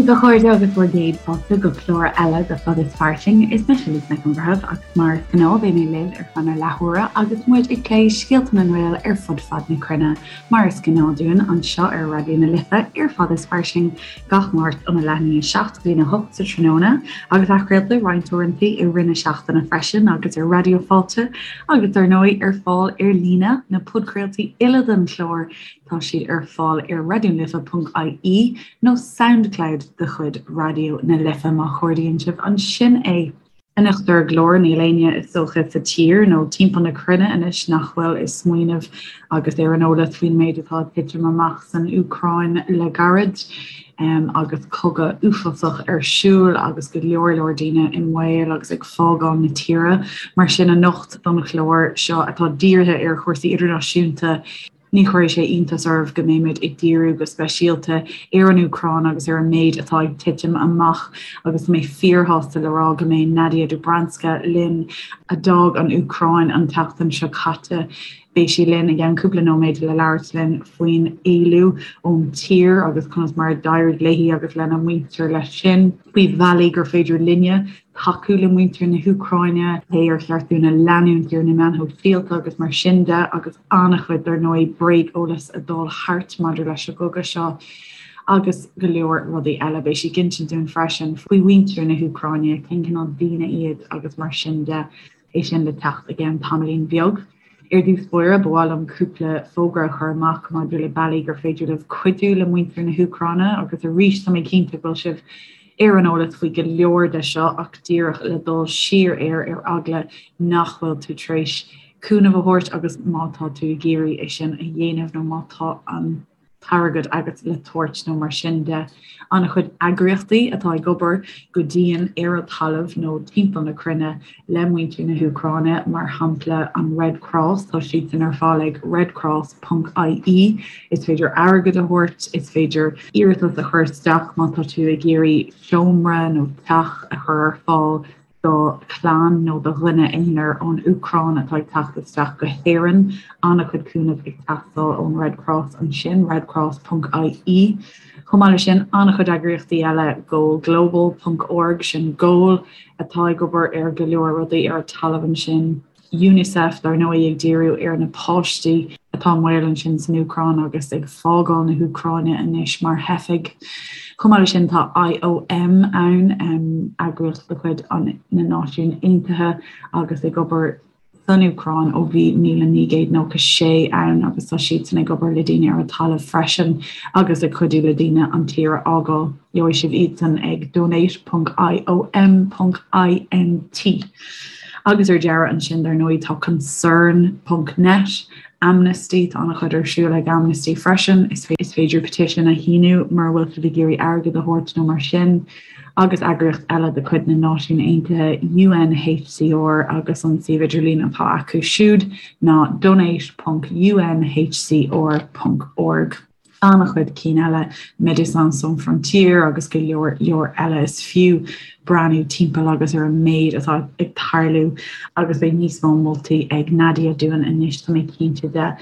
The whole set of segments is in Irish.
daoibh a chairde agus bhur gcéad fáilte go clár eile de Fad is Fairsing. Is mise Lisa Nic an Bhreithimh agus mar is gnáth beidh mé libh ar feadh na leathuaire agus muid ag plé scéalta na nGael ar fud fad na cruinne. Mar is gnáth dúinn anseo ar Raidió na Life ar Fad is Fairsing gach Máirt óna leath i ndiaidh 7 go dtí a 8 sa tráthnóna agus athchraolta roinnt uaireanta i rith na seachtaine freisin agus ar Raidió Fáilte agus dar ndóigh ar fáil ar líne na podchraoltaí uile den chlár Tá siad ar fáil ar raidionalife.ie nó Soundcloud de chuid Raidió na Life má chuardaíonn sibh ansin é. Anocht ar an gclár, níl éinne is dócha sa tír nó timpeall na cruinne anois nach bhfuil ag smaoineamh agus ar an eolas faoin méid atá ag titim amach san Úcráin le gairid agus cogadh uafásach ar siúl agus go leor leor daoine i mbaol agus ag fágáil na tíre. Mar sin anocht don chlár seo atá dírithe ar chúrsaí idirnáisiúnta, Ní chuirfidh sé iontas oraibh go mbeimid ag díriú go speisialta ar an Úcráin agus ar an méid atá ag titim amach agus tá mé fíorshásta le rá go mbeidh Nadia Dobranska linn, a d'fhág an Úcráin an tseachtain seo caite. Beidh sí linn i gceann cúpla nóiméad le labhairt linn faoin éalú ón tír agus conas mar a d'éirigh léi agus lena muintir leis sin, faoi bhealaí gur féidir linne tacú le muintir na hÚcráine, cé ar cheart dúinn a leanúint ar na meáin shóisialta agus mar sin de, agus an-chuid, dar ndóigh, bréageolas ag dul thart maidir leis an gcogadh seo agus go leor rudaí eile. Beidh sí ag insint dúinn freisin faoi mhuintir na hÚcráine, cén cineál daoine iad agus mar sin de. É sin le teacht i gceann tamaillín beag. Ar dtús báire, ba mhaith liom cúpla fógra a chur amach maidir le bealaí gur féidir libh cuidiú le muintir na hÚcráine agus arís tá mé cinnte go bhfuil sibh ar an eolas faoi go leor de seo ach díreach le dul siar air ar eagla nach bhfuil tú tar éis cúnamh a thabhairt agus má tá tú ag iarraidh é sin a dhéanamh nó má tá an t-airgead agat le tabhairt nó mar sin de. An-chuid eagraíochtaí atá ag obair go dian ar an talamh nó timpeall na cruinne le muintir na hÚcráine, mar shampla an Red Cross, tá siadsan ar fáil ag redcross.ie. Is féidir airgead a thabhairt, is féidir iarratas a chur isteach má tá tú ag iarraidh seomra nó teach a chur ar fáil do chlann nó do dhuine aonair ón Úcráin atá ag teacht isteach go hÉirinn. An-chuid cúnamh ag teastáil ón Red Cross ansin, redcross.ie. Chomh maith leis sin, an-chuid eagraíochtaí eile, goalglobal.org, sin Goal, atá ag obair ar go leor rudaí ar an talamh ansin. Unicef, dar ndóigh, ag díriú ar na páistí atá i mbaol ansin san Úcráin agus ag fágáil na hÚcráine anois mar theifigh. Chomh maith leis sin, tá IOM ann, eagraíocht de chuid na Náisiún Aontaithe agus ag obair san Úcráin ó bhí 1996 ann agus tá siadsan ag obair le daoine ar an talamh freisin agus ag cuidiú le daoine an tír a fhágáil. Gheobhaidh sibh iadsan ag donate.iom.int. Agus ar deireadh ansin, dar ndóigh, tá Concern ponc net, Amnesty, tá an-chuid ar siúl ag Amnesty freisin, is féidir petition a shíniú mura bhfuil sibh ag iarraidh airgead a thabhairt nó mar sin, agus eagraíocht eile de chuid na Náisiún Aontaithe, UNHCR, agus an suíomh idirlín atá acu siúd ná donate ponc unhcr ponc org. an-chuid cinn eile, Médecins Sans Frontières agus go leor leor eile. Is fiú breathnú timpeall agus ar an méid atá ag tarlú agus beidh níos mó moltaí ag Nadia dúinn anois, tá mé cinnte de.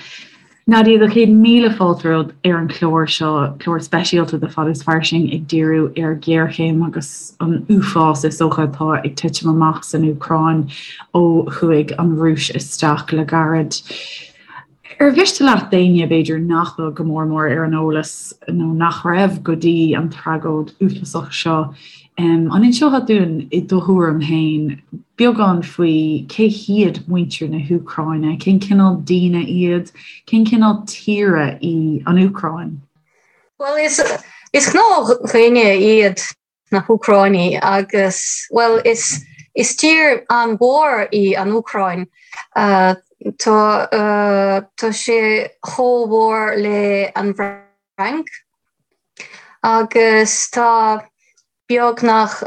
Nadia, do chéad míle fáilte romhat ar an chlár seo, clár speisialta de Fad is Fairsing ag díriú ar ghéarchéim agus an uafás is dócha atá ag titim amach san Úcráin ó chuaigh an Rúis isteach le gairid. Ar mhiste leat d'éinne, b'fhéidir, nach bhfuil go mór mór ar an eolas nó nach raibh go dtí an tragóid uafásach seo, an inseofá dúinn i do thuairim féin beagán faoi cé hiad muintir na hÚcráine, cén cineál daoine iad, cén cineál tíre í an Úcráin? Bhuel, is is gnáthdhaoine iad na hÚcráinigh agus, bhuel, is is tír an-mhór í an Úcráin. Tá tá sé chomh mhór le an Fhrainc agus tá beagnach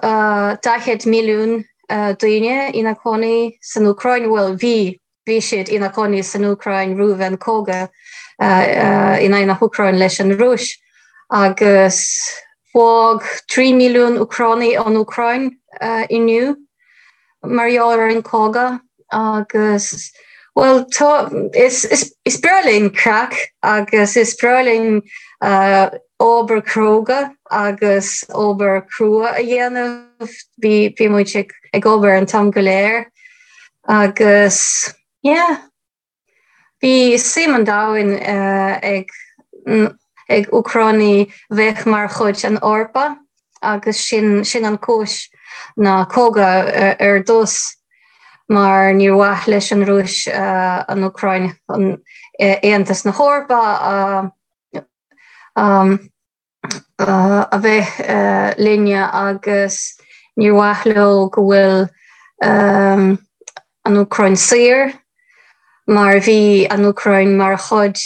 40 milliún daoine ina cónaí san Úcráin, bhuel, bhí Bhí siad ina cónaí san Úcráin roimh an cogadh in aghaidh na hÚcráin leis an Rúis agus fág 3 milliún Úcránaigh an Úcráin inniu mar gheall ar an cogadh agus bhuel tá is is is breá linn craic agus is breá linn obair cróga. agus obair crua a dhéanamh. Bhí bhí muid ag ag obair an t-am go léir agus yeah. Bhí suim an domhain ag ag Úcránaigh bheith mar chuid an Eorpa agus sin sin an cúis na cogadh ar dtús mar níor mhaith leis an Rúis an Úcráin an Aontas na hEorpa a a bheith linne agus níor mhaith leo go bhfuil an Úcráin saor mar bhí an Úcráin mar chuid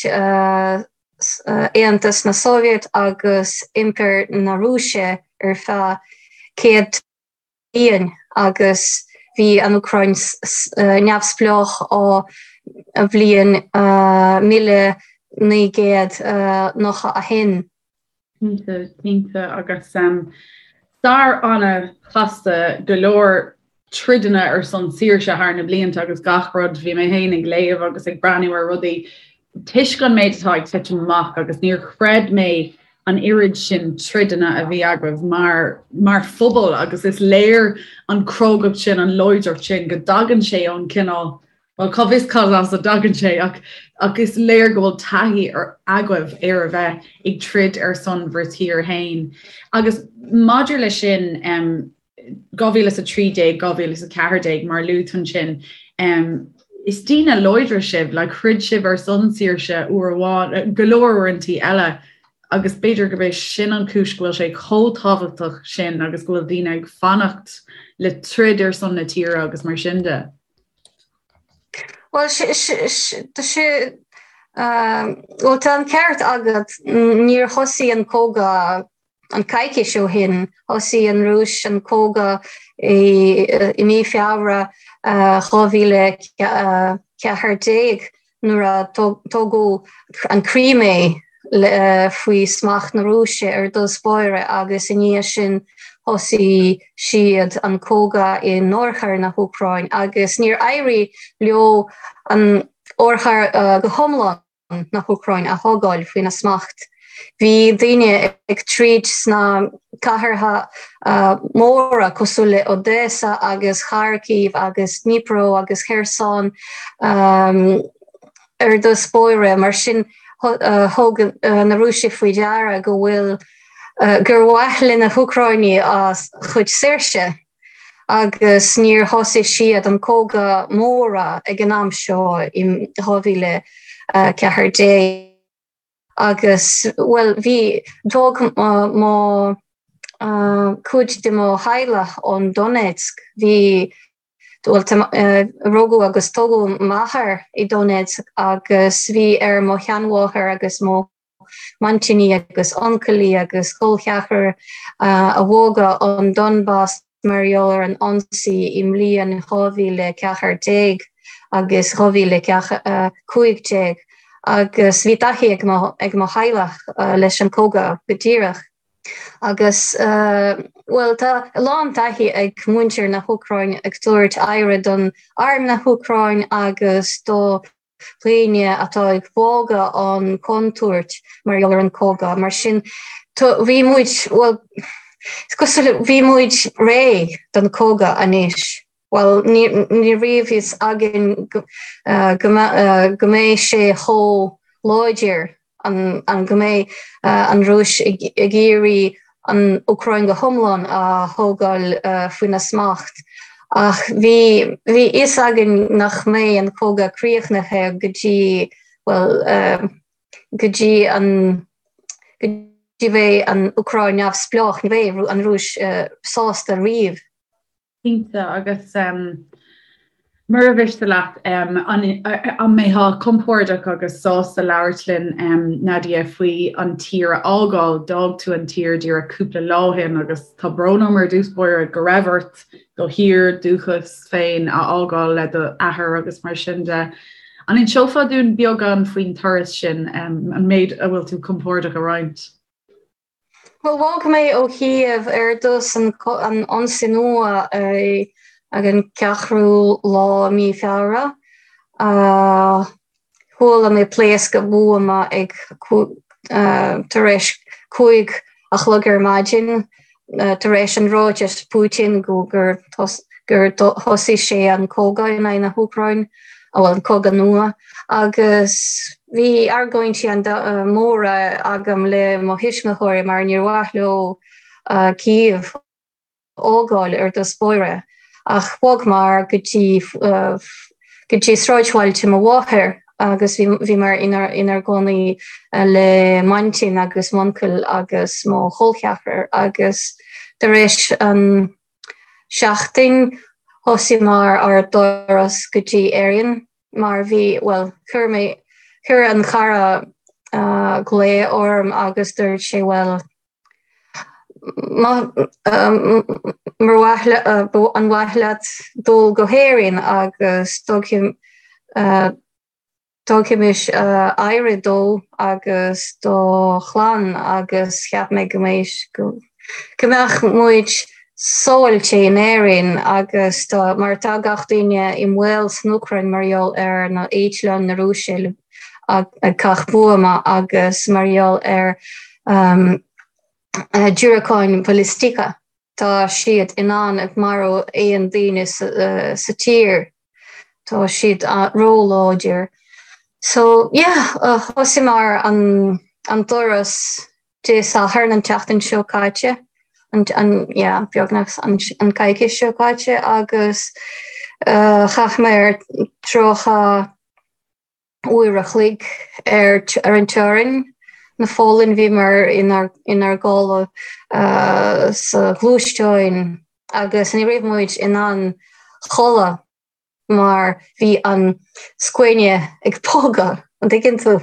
Aontas na Sóivéad agus Impire na Rúise ar feadh 100 bliain agus bhí an Úcráin neamhspleách ó bhliain 1991. Cinnte, cinnte agus stair an-chasta go leor troideanna ar son saoirse thar na blianta agus gach rud, bhí mé féin ag léamh agus ag breathnú ar rudaí toisc an méid atá ag titim amach agus níor chreid mé an oiread sin troideanna a bhí agaibh mar mar phobal agus is léir an crógacht sin, an láidreacht sin go dtagann sé ón cineál, bhuel cá bhfios cad as a dtagann sé ach ach is léir go bhfuil taithí agaibh ar a bheith ag troid ar son bhur tír féin. Agus maidir leis sin, 2013, 2014 mar luaigh tú ansin, is daoine láidre sibh, like throid sibh ar son saoirse uair amháin, go leor uaireantaí eile agus b'fhéidir gurb é sin an chúis go bhfuil sé chomh tábhachtach sin agus go bhfuil daoine ag fanacht le troid ar son na tíre agus mar sin de. Bhuel, tá sé, bhuel tá an ceart agat, níor thosaigh an cogadh An coicís ó shin, thosaigh an Rúis an cogadh i mí Feabhra 2014 nuair a tógadh an Crimea faoi smacht na Rúise ar dtús báire agus i ndiaidh sin thosaigh siad an cogadh in oirthear na hÚcráin agus níor éirigh leo an oirthear go hiomlán. na hÚcráin a thógáil faoina smacht. Bhí daoine ag troid sna cathracha móra cosúil le Odesa agus Kharkiv agus Dnipro agus Kherson ar dtús báire, mar sin thug na Rúisigh faoi deara go bhfuil gur mhaith le na hÚcráinigh a chuid saoirse. agus níor thosaigh siad an cogadh mór ag an am seo in 2014 agus, bhuel, bhí, d'fhág mo, cuid de mo theaghlach ón Donetsk, bhí, bhuel, rugadh agus tógadh m'athair i Donetsk agus bhí ar mo sheanmháthair agus mo m'aintíní agus uncailí agus col ceathrar a bhogadh ón Donbas mar gheall ar an ionsaí i mbliain 2014 agus 2015 agus bhí taithí ag mo ag mo theaghlach leis an cogadh go díreach. Agus bhuel tá a lán taithí ag muintir na hÚcráine ag tabhairt aire don arm na hÚcráin agus do dhaoine atá ag bogadh ón contúirt mar gheall ar an cogadh. Mar sin, bhí muid, bhuel, is cosúil le, bhí muid réidh don cogadh anois. Bhuel, ní raibh fhios againn go mbeidh sé chomh láidir an go mbeidh an Rúis ag iarraidh an Úcráin go hiomlán a thógáil faoina smacht. Ach bhí bhí fhios againn nach mbeidh an cogadh críochnaithe go dtí, bhuel, go dtí an go dtí bheidh an Úcráin neamhspleách, ní bheidh an Rúis sásta riamh. Cinnte, agus mura mhiste leat, an mbeifeá compordach agus sásta labhairt linn, Nadia, faoi an tír a fhágáil? D'fhág tú an tír díreach cúpla lá ó shin agus tá brón orm ar dtús báire go raibh ort do thír dúchais féin a fhágáil le do athair agus mar sin de. An inseofá dúinn beagán faoin turas sin, an méid a bhfuil tú compordach a roinnt? Bhuel, bhog mé ó Chív ar dtús an ionsaí nua ag an ceathrú lá mí Feabhra. Chuala mé pléascadh buama ag tar éis 5. a chlog ar maidin tar éis an ráiteas Putin go gur gur thosaigh sé an cogadh in aghaidh na hÚcráin, bhuel an cogadh nua, agus bhí argóintí móra agam le mo thuismitheoirí mar níor mhaith leo Kyiv a fhágáil ar dtús báire ach bhogmar go dtí go dtí sráidbhailte mo mháthair agus bhíomar inár gcónaí le m'aintín agus m'uncail agus mo chol ceathrar agus tar éis an seachtain thosaíomar ár dturas go dtí Éirinn mar bhí, bhuel, chuir mé, chuir an cara glao orm agus dúirt sé, bhuel, Mar mhaith an mhaith leat dul go hÉirinn agus tógfaimis aire dó agus do chlann agus cheap mé go mbeidh go mbeadh muid sábháilte in Éirinn agus mar tá gach duine i mbaol san Úcráin mar gheall ar na eitleáin na Rúise ag caitheamh buama agus mar gheall ar diúracáin bhalaistíocha. Tá siad in ann ag marú aon daoine sa tír. Tá siad róláidir. So yeah, thosaíomar an an turas Dé Sathairn an tseachtain seo caite, an an yeah, beagnach an an coicís seo caite agus chaith mé 30 uair a chloig ar ar an teorainn na Pholainn. Bhíomar inár inár gcodladh sa ghluaisteáin agus ní raibh muid in ann chodladh mar bhí an scuaine ag bogadh, an dtuigeann tú?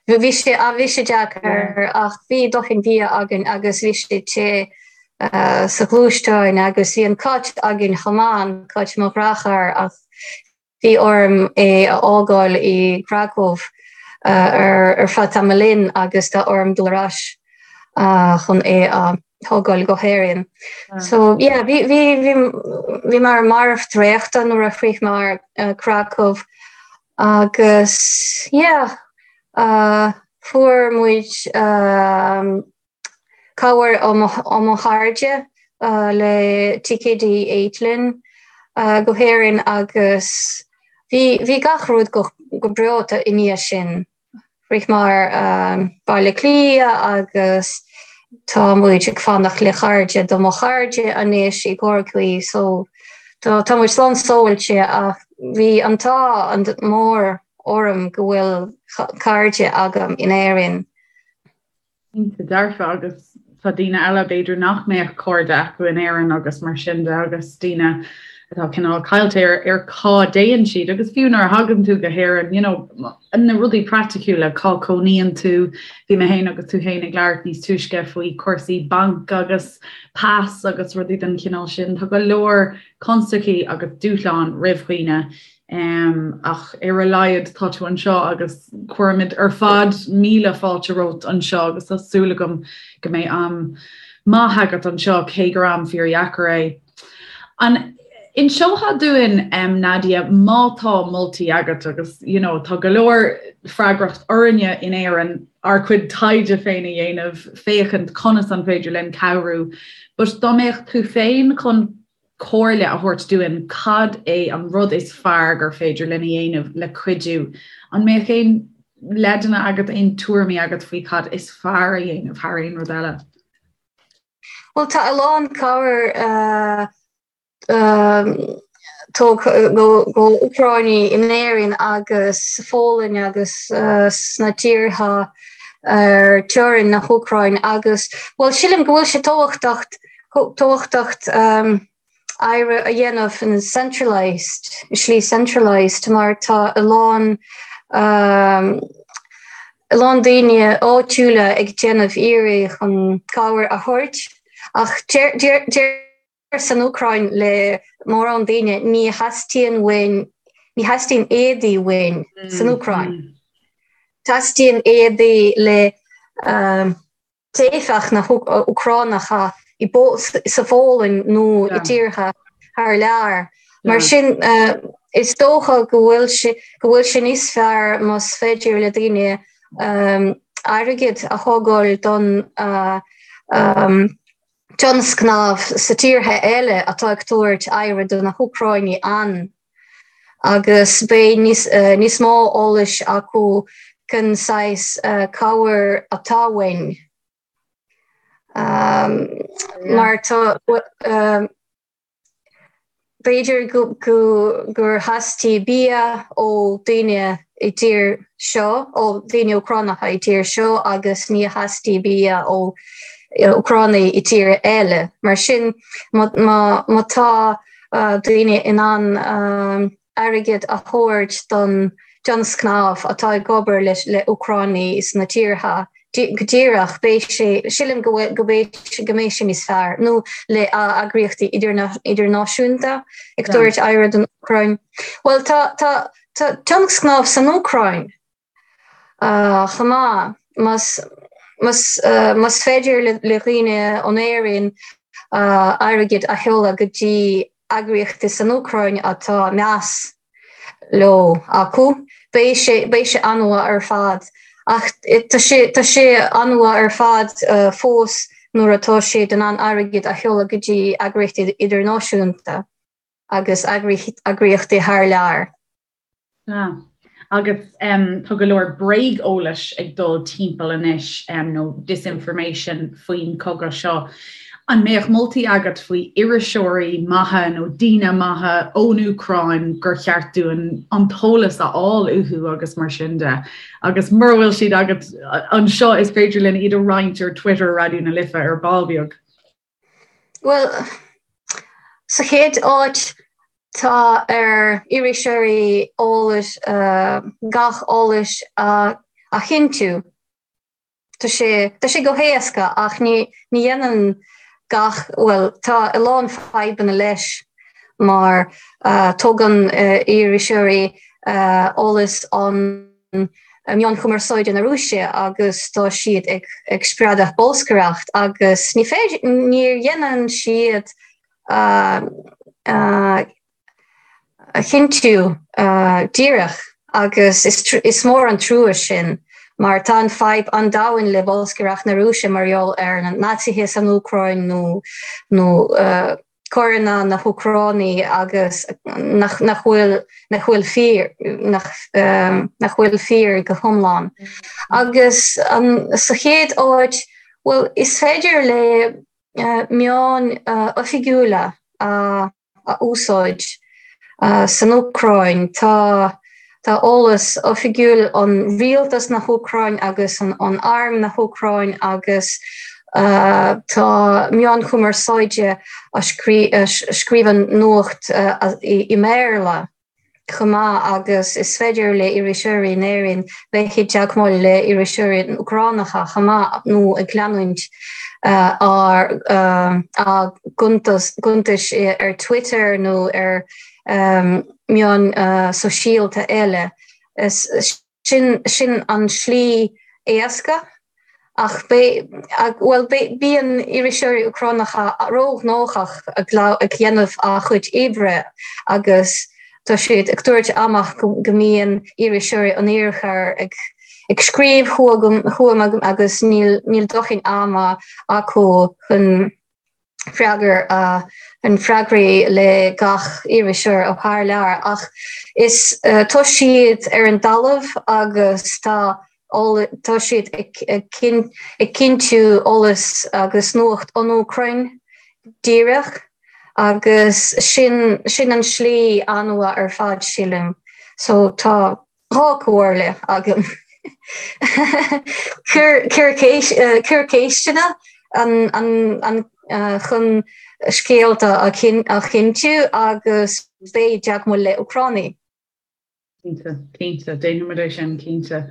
Bhí sé bhí sé deacair ach bhí dóthain bia againn agus bhí sé te sa ghluaisteáin agus bhí an cat againn chomh maith, an cat mo dheartháir ach Bhí orm é a fhágáil i gCracow ar feadh tamaillín agus tá orm dul ar ais chun é a thógáil go hÉirinn. So yeah, bhí bhí bhí bhíomar marbh traochta nuair a shroicheamar Krakow agus yeah, fuair muid cabhair ó mo chairde le ticéidí eitleáin go hÉirinn agus bhí bhí gach rud go go breá i ndiaidh sin. Shroicheamar Baile Átha Cliath agus tá muid ag fanacht le cairde do mo chairde anois i gCorcaigh so tá tá muid slán sábháilte ach bhí an t-ádh mór orm go bhfuil cairde agam in Éirinn. Cinnte dearfa agus tá daoine eile b'fhéidir nach mbeadh cairde acu in Éirinn agus mar sin de agus daoine atá cineál caillte ar ar cá dtéann siad agus fiú nuair a thagann tú go hÉirinn you know na rudaí praiticiúla cá cónaíonn tú bhí mé féin agus tú féin ag labhairt níos túisce faoi cúrsaí banc agus pas agus rudaí den chineál sin tá go leor constaicí agus dúshláin roimh dhaoine Ach ar a laghad tá tú anseo agus cuirimid ar fad míle fáilte romhat anseo agus tá súil agam go mbeidh am maith agat anseo cé gur am fíordheacair é. An inseofá dúinn, Nadia, má tá moltaí agat agus you know tá go leor freagracht orainne in Éirinn ár gcuid taighde féin a dhéanamh, féachaint conas an féidir linn cabhrú, but dá mbeadh tú féin chun comhairle a thabhairt dúinn cad é an rud is fearr gur féidir linn a dhéanamh le cuidiú. An mbeadh aon leideanna agat, aon tuairimí agat faoi cad is fearr a dhéanamh thar aon rud eile? Bhuel, tá a lán cabhair tugtha go Úcráinigh in Éirinn agus sa Pholainn agus sna tíortha ar teorainn na hÚcráine agus, bhuel, sílim go bhfuil sé tábhachtach tábhachtach oibre a dhéanamh in centralised, i slí centralised mar tá a lán a lán daoine áitiúla ag déanamh iarraidh chun cabhair a thabhairt ach deir san Úcráin le mórán daoine ní theastaíonn uainn ní theastaíonn éadaí uainn san Úcráin. Teastaíonn éadaí le teifeach na hÚcránacha sa Pholainn nó i dtíortha thar lear. Mar sin, is dócha go bhfuil sé go bhfuil sé níos fearr más féidir le daoine airgead a thógáil don. tionscnaimh sa tíortha eile atá ag tabhairt aire do na hÚcráinigh ann agus beidh níos mó eolais acu cén saghas cabhair atá uainn. Mar tá B'fhéidir gur theastaigh bia ó daoine i dtír seo, ó daoine Úcránacha i dtír seo agus ní theastaigh bia ó Úcránaigh i tír eile. Mar sin, má tá daoine in ann airgead a thabhairt don tionscnamh atá ag obair le Úcránaigh sna tíortha go díreach, beidh sé, sílim go bhfuil, go mbeidh, go mbeidh sé níos fearr, nó le eagraíochtaí idirnáisiúnta ag tabhairt aire don Úcráin. Bhuel, tá, tá, tá tionscnamh san Úcráin chomh maith, más, más, más féidir le dhaoine ón Éirinn airgead a sheoladh go dtí eagraíochtaí san Úcráin atá meas leo acu. Beidh sé, beidh sé an-mhaith ar fad. Ach tá sé, tá sé an-mhaith ar fad fós nuair atá siad in ann airgead a sheoladh go dtí eagraíochtaí idirnáisiúnta agus eagraíochtaí thar lear. Sea. Agus tá go leor bréag-eolais ag dul timpeall anois, nó disinformation faoin chogadh seo. An mbeadh moltaí agat faoi iriseoirí maithe nó daoine maithe ón Úcráin gur cheart dúinn an t-eolas a fháil uathu agus mar sin de? Agus mura bhfuil siad agat anseo is féidir linn iad a roinnt ar Twitter Raidió na Life ar ball beag. Bhuel, sa chéad áit, tá ar iriseoirí eolas, gach eolas a chinntiú. Tá sé, tá sé go héasca ach ní, ní dhéanann gach, bhuel, tá a lán fadhbanna leis mar tógann iriseoirí eolas ón meáin chumarsáide na Rúise agus tá siad ag spreagadh bolscaireacht agus ní féidir, ní dhéanann siad a chinntiú díreach agus is mór an trua sin mar tá an fadhb an-domhain le bolscaireacht na Rúise mar gheall ar na Naitsithe san Úcráin nó nó coireanna na hÚcránaí agus nach nach bhfuil nach bhfuil fíor nach nach bhfuil fíor go hiomlán. Agus an sa chéad áit, bhuel, is féidir le meáin oifigiúla a a úsáid san Úcráin. Tá tá eolas oifigiúil ón rialtas na hÚcráin agus ón arm na hÚcráin agus tá meáin chumarsáide a scríobhann nuacht i mBéarla chomh maith agus is féidir le iriseoirí in Éirinn bheith i dteagmháil le iriseoirí Úcránacha chomh maith nó ag leanúint ár a gcuntais ar Twitter nó ar meáin sóisialta eile. Sin sin an slí éasca ach bhuel bíonn iriseoirí Úcránacha róghnóthach ag déanamh a chuid oibre agus tá siad ag tabhairt amach go mbíonn iriseoirí an Iarthair ag ag scríobh chugam agus níl níl dóthain ama acu chun freagair an freagraí le gach iriseoir ó thar lear ach is tá siad ar an dtalamh agus tá tá siad ag cinntiú eolas agus nuacht ón Úcráin díreach agus sin sin an slí an-mhaith ar fad sílim. So tá 2 comhairle agam. Cuir ceisteanna chun scéalta a chinntiú agus beidh i dteagmháil le Úcránaigh. Cinnte, cinnte, déanfaimid é sin, cinnte.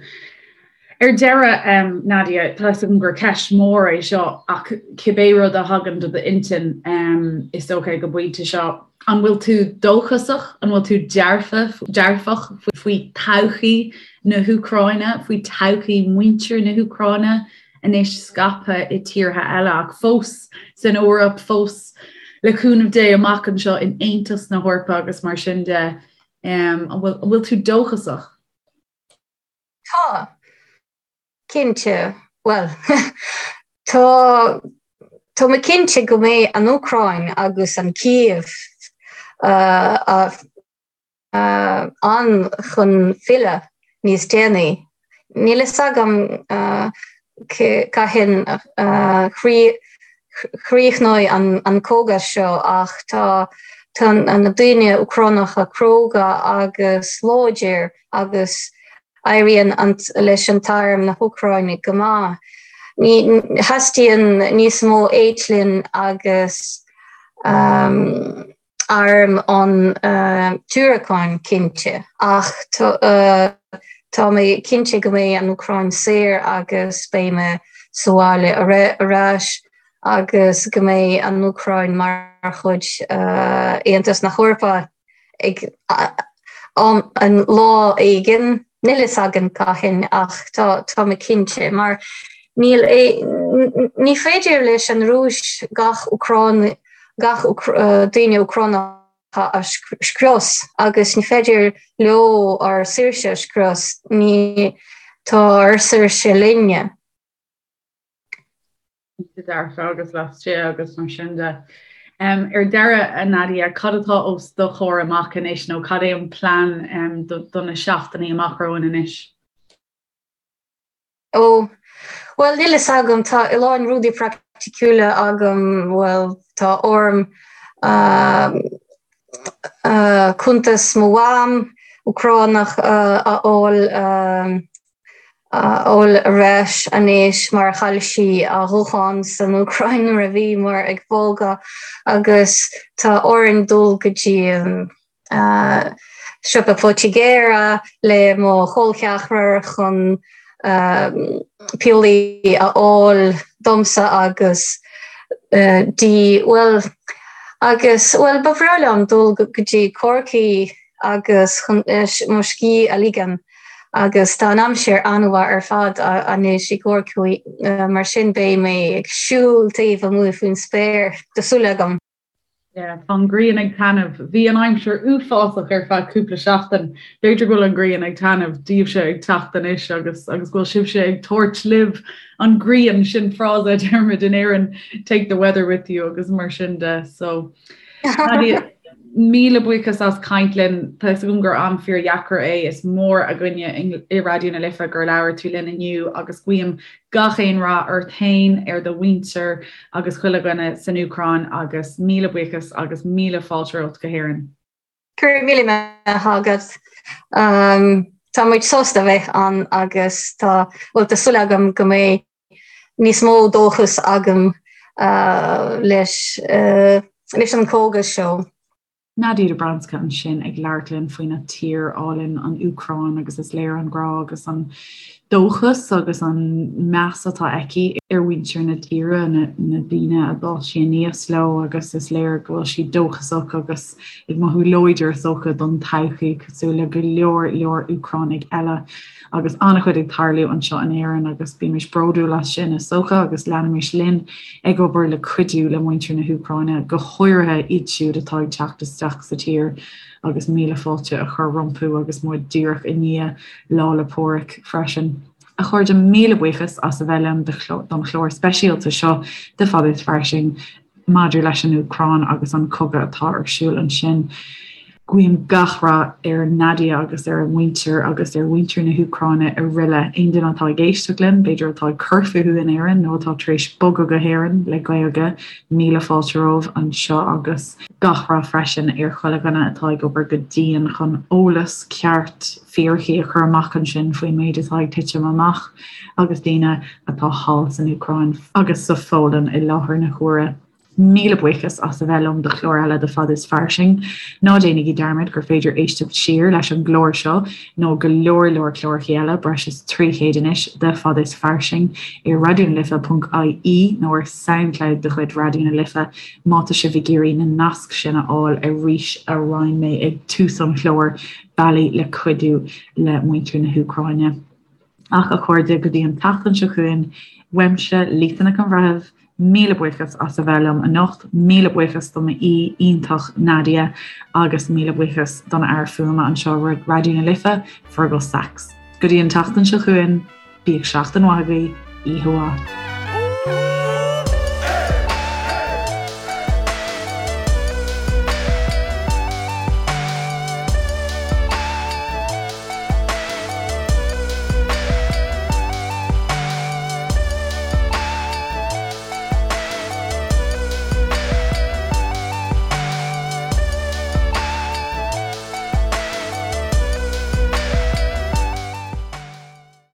Ar deireadh, Nadia, tá fhios agam gur ceist mhór é seo ach cibé rud a thagann do d'intinn, is dócha ag an bpointe seo, An bhfuil tú dóchasach? An bhfuil tú dearfach faoi todhchaí na hÚcráine, faoi todhchaí mhuintir na hÚcráine anois scaipthe i tíortha eile ach fós san Eoraip, fós le cúnamh Dé amach anseo in Aontas na hEorpa agus mar sin de? An bhfuil tú dóchasach? Tá. Cinnte. Bhuel, tá. Tá mé cinnte go mbeidh an Úcráin agus an Cív ann chun filleadh níos déanaí. Níl fhios agam cathain a chríochnóidh an cogadh seo ach tá na daoine Úcránacha cróga agus láidir agus éiríonn leis an t-arm na hÚcráine go maith. Ní theastaíonn níos mó eitleán agus arm ón tUcráin cinnte ach tá mé cinnte go mbeidh an Úcráin saor agus beidh mé sa bhaile ar ais agus go mbeidh an Úcráin mar chuid Aontas na hEorpa. ag an lá éigin, níl fhios againn cathain ach tá tá mé cinnte mar níl ní féidir leis an Rúis gach Úcráin gach daoine Úcránacha a scrios agus ní féidir leo ár saoirse a scrios, ní tá ár saoirse linne. Cinnte dearfa agus laistigh agus mar sin de. Ar deireadh, a Nadia, cad atá os do chomhair amach anois nó cad é an plean do na seachtainí amach romhainn anois? Ó, bhuel, níl fhios agam, tá a lán rudaí praiticiúla agam, bhuel, tá orm cuntas mo mham Úcránach a fháil, a fháil ar ais anois mar chaill sí a guthán san Úcráin nuair a bhíomar ag bogadh agus tá orainn dul go dtí an siopa poitigéara le mo chol ceathrar chun piollaí a fháil domsa agus di bhuel agus bhuel ba bhreá liom dul go dtí Corcaigh agus chun mo scíth a ligean agus tá an aimsir an-mhaith ar fad anois i gCorcaigh mar sin beidh mé ag siúl taobh amuigh faoin spéir, tá súil agam. Yeah, tá an ghrian ag taitneamh. Bhí an aimsir uafásach ar feadh cúpla seachtain. B'fhéidir go bhfuil an ghrian ag taitneamh daoibhse ag teacht anois agus agus go bhfuil sibhse ag tabhairt libh an ghrian, sin frása a deirimid in Éirinn, take the weather with you agus mar sin de. So Nadia, míle buíochas as caint linn. Tá fhios agam gur am fíordheacair é. Is mór againne i Raidió na Life gur labhair tú linn inniu agus guím gach aon rath ort féin, ar do mhuintir agus chuile dhuine san Úcráin agus míle buíochas agus míle fáilte romhat go hÉirinn. Go raibh míle maith agat. Tá muid sásta bheith ann agus tá, bhuel, tá súil agam go mbeidh níos mó dóchas agam leis leis an cogadh seo. Nadia Dobrzanska ansin ag labhairt linn faoina tír álainn, an Úcráin, agus is léir an grá agus an dóchas agus an meas atá aici ar mhuintir na tíre, na daoine a d'fhás sí aníos leo agus is léir go bhfuil sí dóchasach agus ag mothú láidir is dócha don todhchaí cosúil le go leor leor Úcránaigh eile. Agus an-chuid ag tarlú anseo in Éirinn agus bímis bródúil as sin is dócha agus leanaimis linn ag obair le cuidiú le muintir na hÚcráine, go háirithe iad siúd atá ag teacht isteach sa tír agus míle fáilte a chur rompu agus muid díreach i ndiaidh Lá 'le Pádraig freisin. A chairde, míle buíochas as a bheith liom don chlár speisialta seo de Fada is Fairsing. Maidir leis an Úcráin agus an cogadh atá ar siúl ansin, guím gach rath ar Nadia agus ar a muintir agus ar mhuintir na hÚcráine araile. Aon duine atá ag éisteacht linn, b'fhéidir atá ag cur fúthu in Éirinn nó atá tar éis bogadh go hÉirinn le Gaeilge, míle fáilte romhaibh anseo agus gach rath freisin ar chuile dhuine atá ag obair go dian chun eolas ceart, fíricí a chur amach ansin faoin méid atá ag titim amach agus daoine atá thall san Úcráin agus sa Pholainn i láthair na huaire. Míle buíochas as a bheith liom do chlár eile de Fada is Fairsing. Ná déanaigí dearmad gur féidir éisteacht siar leis an gclár seo nó go leor leor cláracha eile, breis is 300 anois, de Fada is Fairsing ar raidionalife.ie nó ar Soundcloud de chuid Raidió na Life má tá sibh ag iarraidh na naisc sin a fháil arís a roinn mé ag tús an chláir. bealaí le cuidiú le muintir na hÚcráine. Ach, a chairde, go dtí an tseachtain seo chugainn, uaimse, Lisa Nic an Bhreithimh, míle buíochas as a bheith liom anocht, míle buíochas do m'aoi iontach Nadia agus míle buíochas don fhear fuaime anseo i Raidió na Life, Fergal Sachs. Go dtí an tseachtain seo chugainn, bíodh seachtain mhaith agaibh, oíche mhaith.